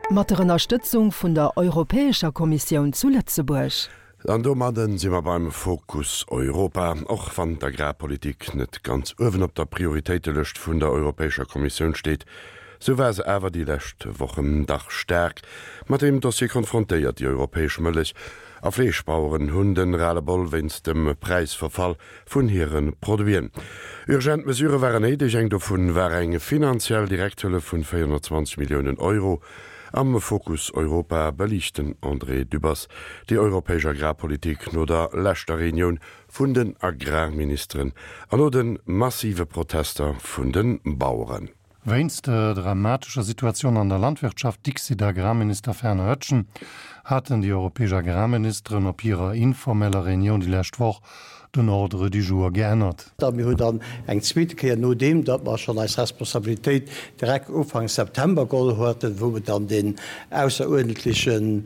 Mat der Ënnerstëtzung vun der Europäescher Kommissioun zu Lëtzebuerg. An domadde si mer beim Fokus Europa. Och wann d'Agrarpolitik net ganz uewen op der Prioritéitelëscht vun der Europäescher Kommissioun steet, sou war se awer déi lescht Wochen dach staark mat deem Dossier konfrontéiert. Déi europäesch Mëllech a Fleeschbaueren hunn de Ras-le-bol wéinst dem Präisverfall vun hire Produiten. Urgent Mesurë waren néideg, eng dovun war eng finanziell Direkthëllef vun 420 Milliounen Euro. Am Fokus Europa beliicht den André Dübbers déi europäesch Agrarpolitik no der leschter Reunioun vun den Agrarministeren an no de massive Protester vun de Baueren. Wéinst der dramatescher Situatioun an der Landwirtschaft, dixit Agrarminister Fernand Oetschen, haten déi europäesch Agrarministeren op hirer informeller Reunioun déi lescht Woch den Ordre du jour geännert. A mir hunn dann eng zweete Kéier, nodeem datt mer schonn eis Responsabilitéit direkt Ufank September geholl haten, wou mer dann deen ausseruerdentleche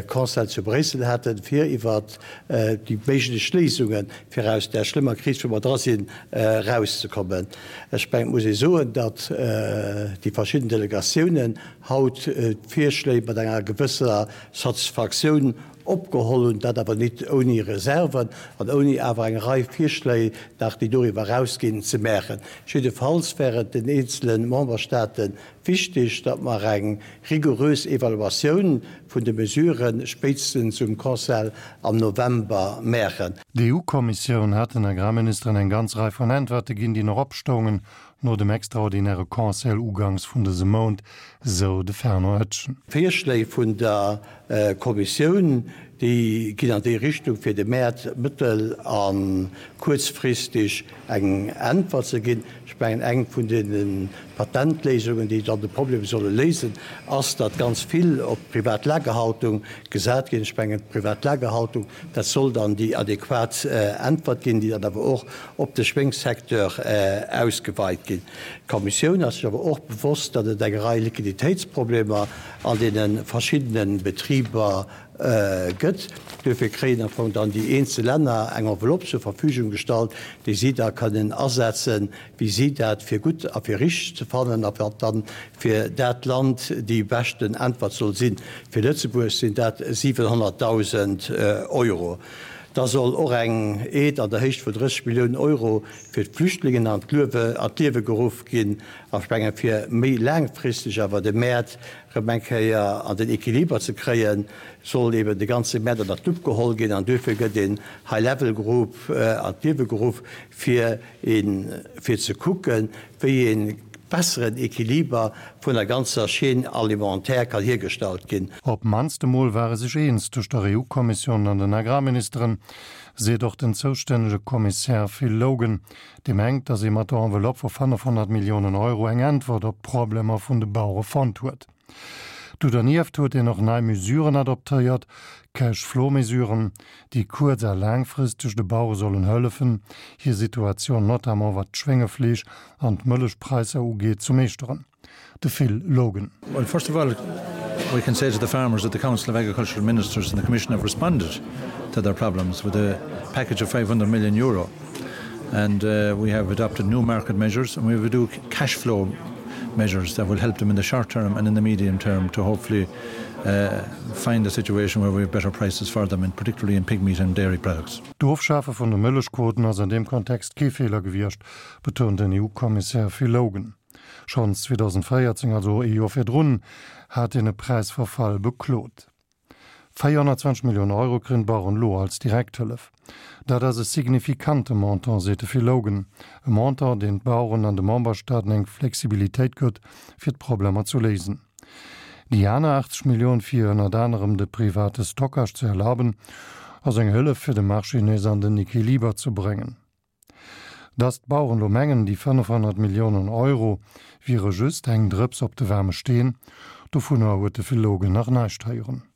Conseil zu Bréissel haten, fir iwwert déi méiglech Léisungen, fir aus där schlëmmer Kris, wou mer dra sinn, erauszekommen. Ech mengen, et muss ee soen, datt déi verschidden Delegatiounen haut d'Virschléi mat enger gewësser Satisfaktioun opgeholl hunn, dat awer nit ouni Reserven an ouni awer eng Rei Virschléi nach, déi doriwwer erausginn, ze maachen. Jiddefalls wär et den eenzele Memberstaate Wichtig, datt mer eng rigorös Evaluatioun vun de Mesurë spéitstens um Conseil am November maachen. D'EU-Kommissioun hat den Agrarministeren eng ganz Rei vun Äntwerte ginn, déi nach opstoungen no dem extraordinäre Conseil uganks vun dësem Mount, sou de Fernand Oetschen. D'Virschléi vun der Kommissioun, déi ginn an déi Richtung, fir de Mäert mëttel a kuerzfristeg eng Äntwert ze ginn. Ech mengen, eng vun deene Patentléisungen, déi dann de Problem solle léisen, ass, datt ganz vill op d'privat Lagerhaltung gesat ginn. Ech mengen, d'privat Lagerhaltung, dat soll dann déi adequat Äntwert ginn, déi dann awer och op de Schwéngssecteur ausgeweit ginn. D'Kommissioun ass sech awer och bewosst, datt et eng Rei Liquiditéitsproblemer an deene verschiddene Betriber gëtt. Duerfir kréien am Fong dann déi eenzel Länner eng Enveloppe zur Verfügung gestallt, déi si da kënnen asetzen, wéi si dat fir gutt a fir richteg ze fannen a wat dann fir dat Land déi beschten Äntwert soll sinn. Fir Lëtzebuerg sinn dat 700.000 Euro. Da soll och eng Aide an der Héicht vun 30 Milliounen Euro fir d'Flüchtlingen an d'Liewe geruff ginn. A ech menge fir méi laangfristeg awer de Mäert rëm eng Kéier an den Equiliber ze kréien, soll eben de ganze Mäert ënnert d'Lupp geholl ginn an duerfir gëtt een High Level Group an d'Liewe geruff, fir een, fir ze kucken, wéi ee besseren Equiliber vun der ganzer Chaîne alimentaire kann hiergestallt ginn. Op d'mannst emol ware sech eens tëscht der EU-Kommissioun an den Agrarministeren, seet och den zoustännege Kommissär Phil Logan. Dee mengt, datt ee mat der Enveloppe vu 500 Milliounen Euro eng Äntwert op d'Problemer vun de Bauere fonnt huet. Do dernieft huet een och nei Mesuren adoptéiert, Cash-Flow-Mesuren, déi kuerz a laangfristeg de Bauere sollen hëllefen, hir Situatioun, notamment wat d'Schwéngefleesch an d'Mëllechpräisser ugeet, ze meeschteren. De Phil Logan. Well first of all we can say to the farmers that the Council of Agricultural Ministers and the Commission have responded to their problems with a package of 500 million euro and uh, we have adopted new market measures and we will do cash flow measures that will help them in the short term and in the medium term to hopefully uh, find a situation where we have better prices for them and particularly in pig meat and dairy products. D'Ofschafe vun de Mëllechquoten ass an deem Kontext kee Feeler gewiescht, betount den EU-Kommissär Phil Hogan. Schonns 2014, also ee Joer virdrun, hat een e Präisverfall beklot. 420 Milliounen Euro kréien d'Baueren elo als Direkthëllef. Dat ass e signifikante Montant, seet de Phil Hogan. E Montant, deen d'Baueren an de Memberstaaten eng Flexibilitéit gëtt, fir d'Problemer zu léisen. Déi aner 80 Millioun, fir ënnert anerem de private Stockage ze erlaben, ass eng Hëllef, fir de Marché nees an den Equiliber ze bréngen. Datt d'Baueren elo mengen, déi 500 Milliounen Euro wiere just eng Drëps op de waarme Steen, dovunner huet de Phil Logan nach näischt héieren.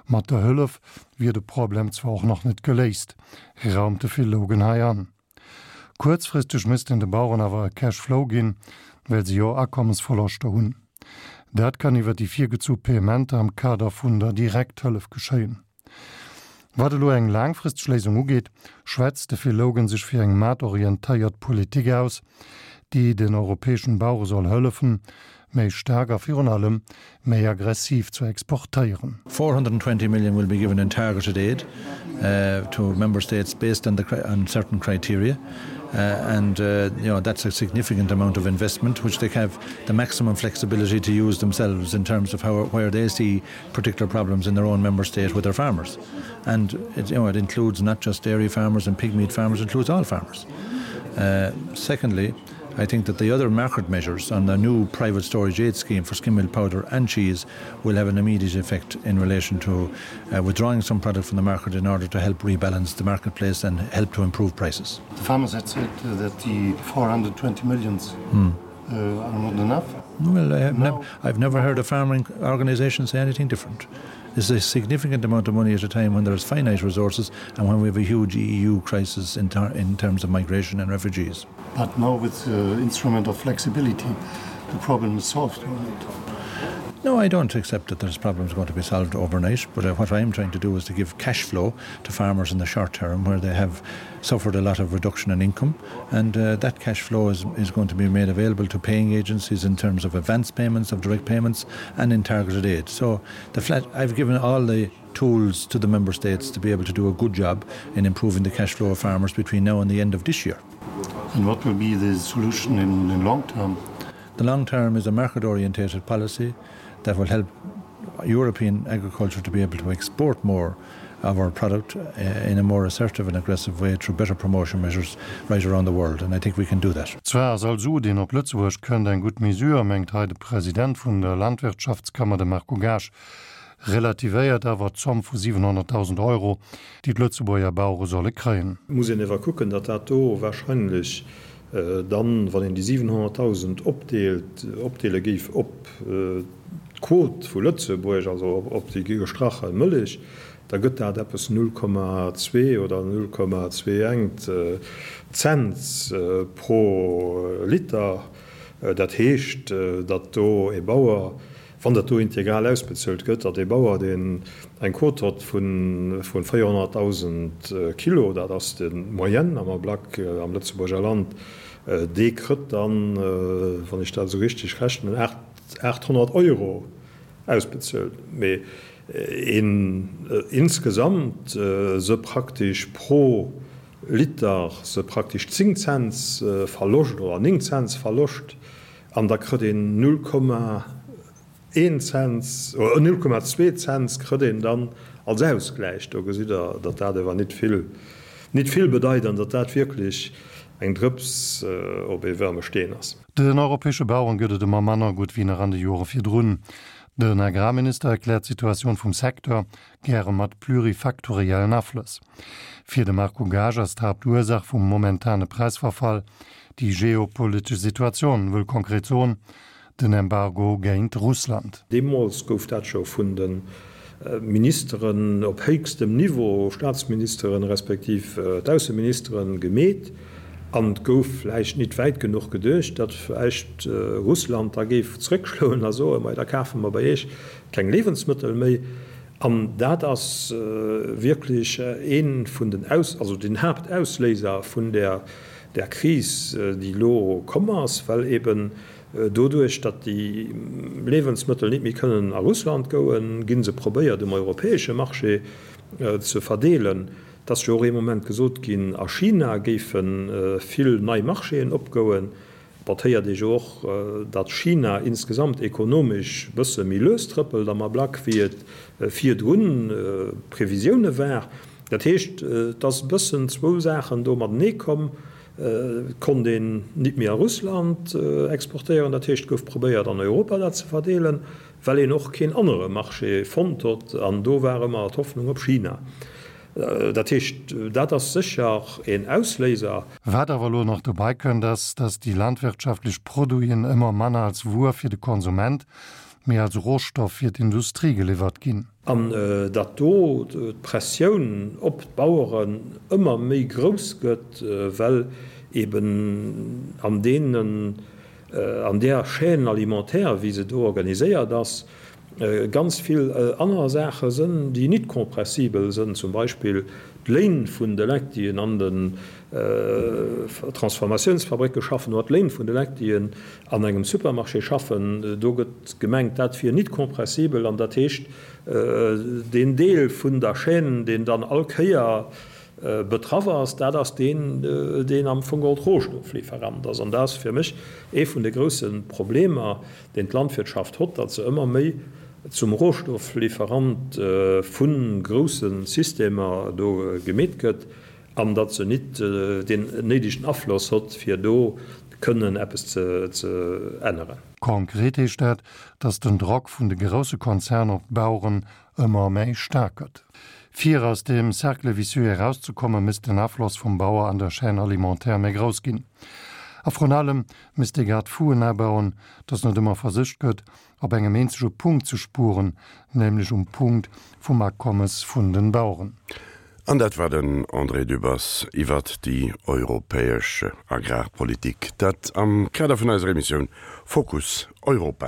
Mat der Hëllef wier de Problem zwar och nach net geléist, raumt de Phil Logan hei an. Kuerzfristeg misst een de Baueren awer e Cash Flow ginn, well se jo Akommesverloschter hunn. Dat kann iwwer déi virgezu Paiementer am Kader vun der Direkthëllef geschéien. Wat elo eng laangfristeg Léisung ugeet, schwätzt de Phil Hogan sech fir eng maartorientéiert Politik aus, déi den europäeschen Bauere soll hëllefen. méi staark a virun allem méi aggressiv zu exportéieren. 420 million will be given in targeted aid to member states based on the on certain criteria and you know that's a significant amount of investment which they have the maximum flexibility to use themselves in terms of how where they see particular problems in their own member state with their farmers. And it, you know, it includes not just dairy farmers and pig meat farmers, it includes all farmers. Uh, secondly, I think that the other market measures on the new private storage aid scheme for skim milk powder and cheese will have an immediate effect in relation to uh, withdrawing some product from the market in order to help rebalance the marketplace and help to improve prices. The farmers had said that the 420 millions hmm. uh, are not enough. Well, I have no. ne I've never heard a farming organization say anything different. This is a significant amount of money at a time when there is finite resources and when we have a huge EU crisis in, ter in terms of migration and refugees. But now with the instrument of flexibility, the problem is solved. Right? No, I don't accept that there's problems going to be solved overnight, but uh, what I am trying to do is to give cash flow to farmers in the short term where they have suffered a lot of reduction in income, and uh, that cash flow is, is going to be made available to paying agencies in terms of advance payments, of direct payments, and in targeted aid. So the flat, I've given all the tools to the member states to be able to do a good job in improving the cash flow of farmers between now and the end of this year. And what will be the solution in the long term? The long term is a market-orientated policy that will help European agriculture to be able to export more of our product uh, in a more assertive and aggressive way through better promotion measures right around the world and I think we can do that. Zwar ass all Su, deen op Lëtzebuerg kënnt, eng gutt Mesure, mengt hei de President vun der Landwirtschaftskammer, de Marco Gaasch, relativéiert awer d'Zomm vu 700.000 Euro, déi d'Lëtzebuerger Bauere solle kréien. Muss een ewer kucken, datt dat do wahrscheinlech dann, wann een déi 700.000 opdeelt, opdeele géif op d'Quot vu Lëtzebuerg, also op déi gestrache Mëllech, da gëtt dat eppes 0,2 oder 0,21 Cents pro Liter. Dat heescht, datt do e Bauer, wann dat do integral ausbezuelt gëtt, datt e Bauer, deen eng Quot hott vu 400.000 Kilo, dat ass de Moyenne am Ablack am Lëtzebuerger Land, dee krëtt dann, wann ech dat esou richteg rechnen, 800 Euro ausbezuelt. Mee een insgesamt se praktesch pro Liter se praktesch 10 Cents Verloscht oder 9 Cents Verloscht an da krëtt een 0,1 Cents oder 0,2 Cents krëtt een dann als Ausgläich. Do gesitt Der, datt dat ewer nit vill, nit vill bedeit an datt dat wierklech eng Drëps op ee waarme Steen ass. Den europäesche Baueren gëtt et ëmmer manner gutt wéi nach an de Jore virdrun. Den Agrarminister erkläert d'Situatioun vum Secteur gäre mat plurifaktoriellen Aflëss. Fir de Marco Gaasch ass d'Haaptursaach vum momentane Präisverfall déi geopolitesch Situatioun, wëll konkret soen, den Embargo géint Russland. Deemools gouf dat scho vun de Ministeren op héchstem Niveau, Staatsministeren respektiv d'Ausseministeren, gemeet. An et gouf vläicht nit wäit genuch geduecht, datt vläicht Russland da géif zréckschloen a soen, Mei, da kafe mer bei Iech keng Liewensmëttel méi. An dat ass wierklech ee vun den Aus-, also den Haaptausléiser vun där, där Kris, déi elo komm ass, well eben doduerch, datt déi Liewensmëttel nit méi kënnen a Russland gouen, gi se probéiert um europäesche Marché ze verdeelen. Et ass jo och ee Moment gesot ginn, a China géife vill nei Marchéen opgouen. Bon, et héiert ee jo och, datt China insgesamt ekonomesch bësse méi lues trëppelt am Ablack, wéi et virdrun d'Previsioune war. Dat heescht, et ass e bëssen zwou Saachen do matenee komm. Et konnt een nit méi a Russland exportéieren, dat heescht, et gouf probéiert an Europa dat ze verdeelen, well een och keen anere Marché fonnt hott, an do war ëmmer d'Hoffnung op China. Dat heescht, dat ass sécher een Ausléiser. Wat awer elo nach dobei kënnt, ass, dass déi landwirtschaftlech Produiten ëmmer manner als Wuer fir de Konsument, mee als Rohstoff fir d'Industrie geliwwert ginn. An datt do d'Pressioun op d'Baueren ëmmer méi grouss gëtt, well eben an deenen, an där Chaîne alimentaire, wéi se do organiséiert ass. ganz vill aner Saache sënn, déi nit compressibel sënn, zum Beispill d'Léin vun de Leit, déi an den Transformatiounsfabrécke schaffen, oder d'Léin vun de Leit, déi an engem Supermarché schaffen. Do gëtt gemengt, dat wier nit compressibel, an dat heescht, deen Deel vun der Chaîne, deen dann all Kéier betraff ass, dat ass deen, deen am Fong geholl Rohstofflieferant ass. An dat ass fir mech ee vun de grousse Problemer, deen d'Landwirtschaft hott, datt se ëmmer méi zum Rohstofflieferant vu grousse Systemer do gemeet gëtt an datt se nit deen néidegen Afloss hott, fir do kënnen eppes ze änneren. Konkret heescht dat, datt den Drock vun de grousse Konzerner op d'Baueren ëmmer méi staark gëtt. Fir aus deem Cercle vicieux erauszekommen, misst den Afloss vum Bauer an der Chaîne alimentaire méi grouss ginn. A vrun allem misst ee Garde-fouen abauen, datt net ëmmer versicht gëtt, op engem eenzege Punkt ze spueren, nämlech um Punkt vum Akommes vun den Baueren. An dat war den André Dübbers iwwert déi europäesch Agrarpolitik. Dat am Kader vun eiser Emissioun Fokus Europa.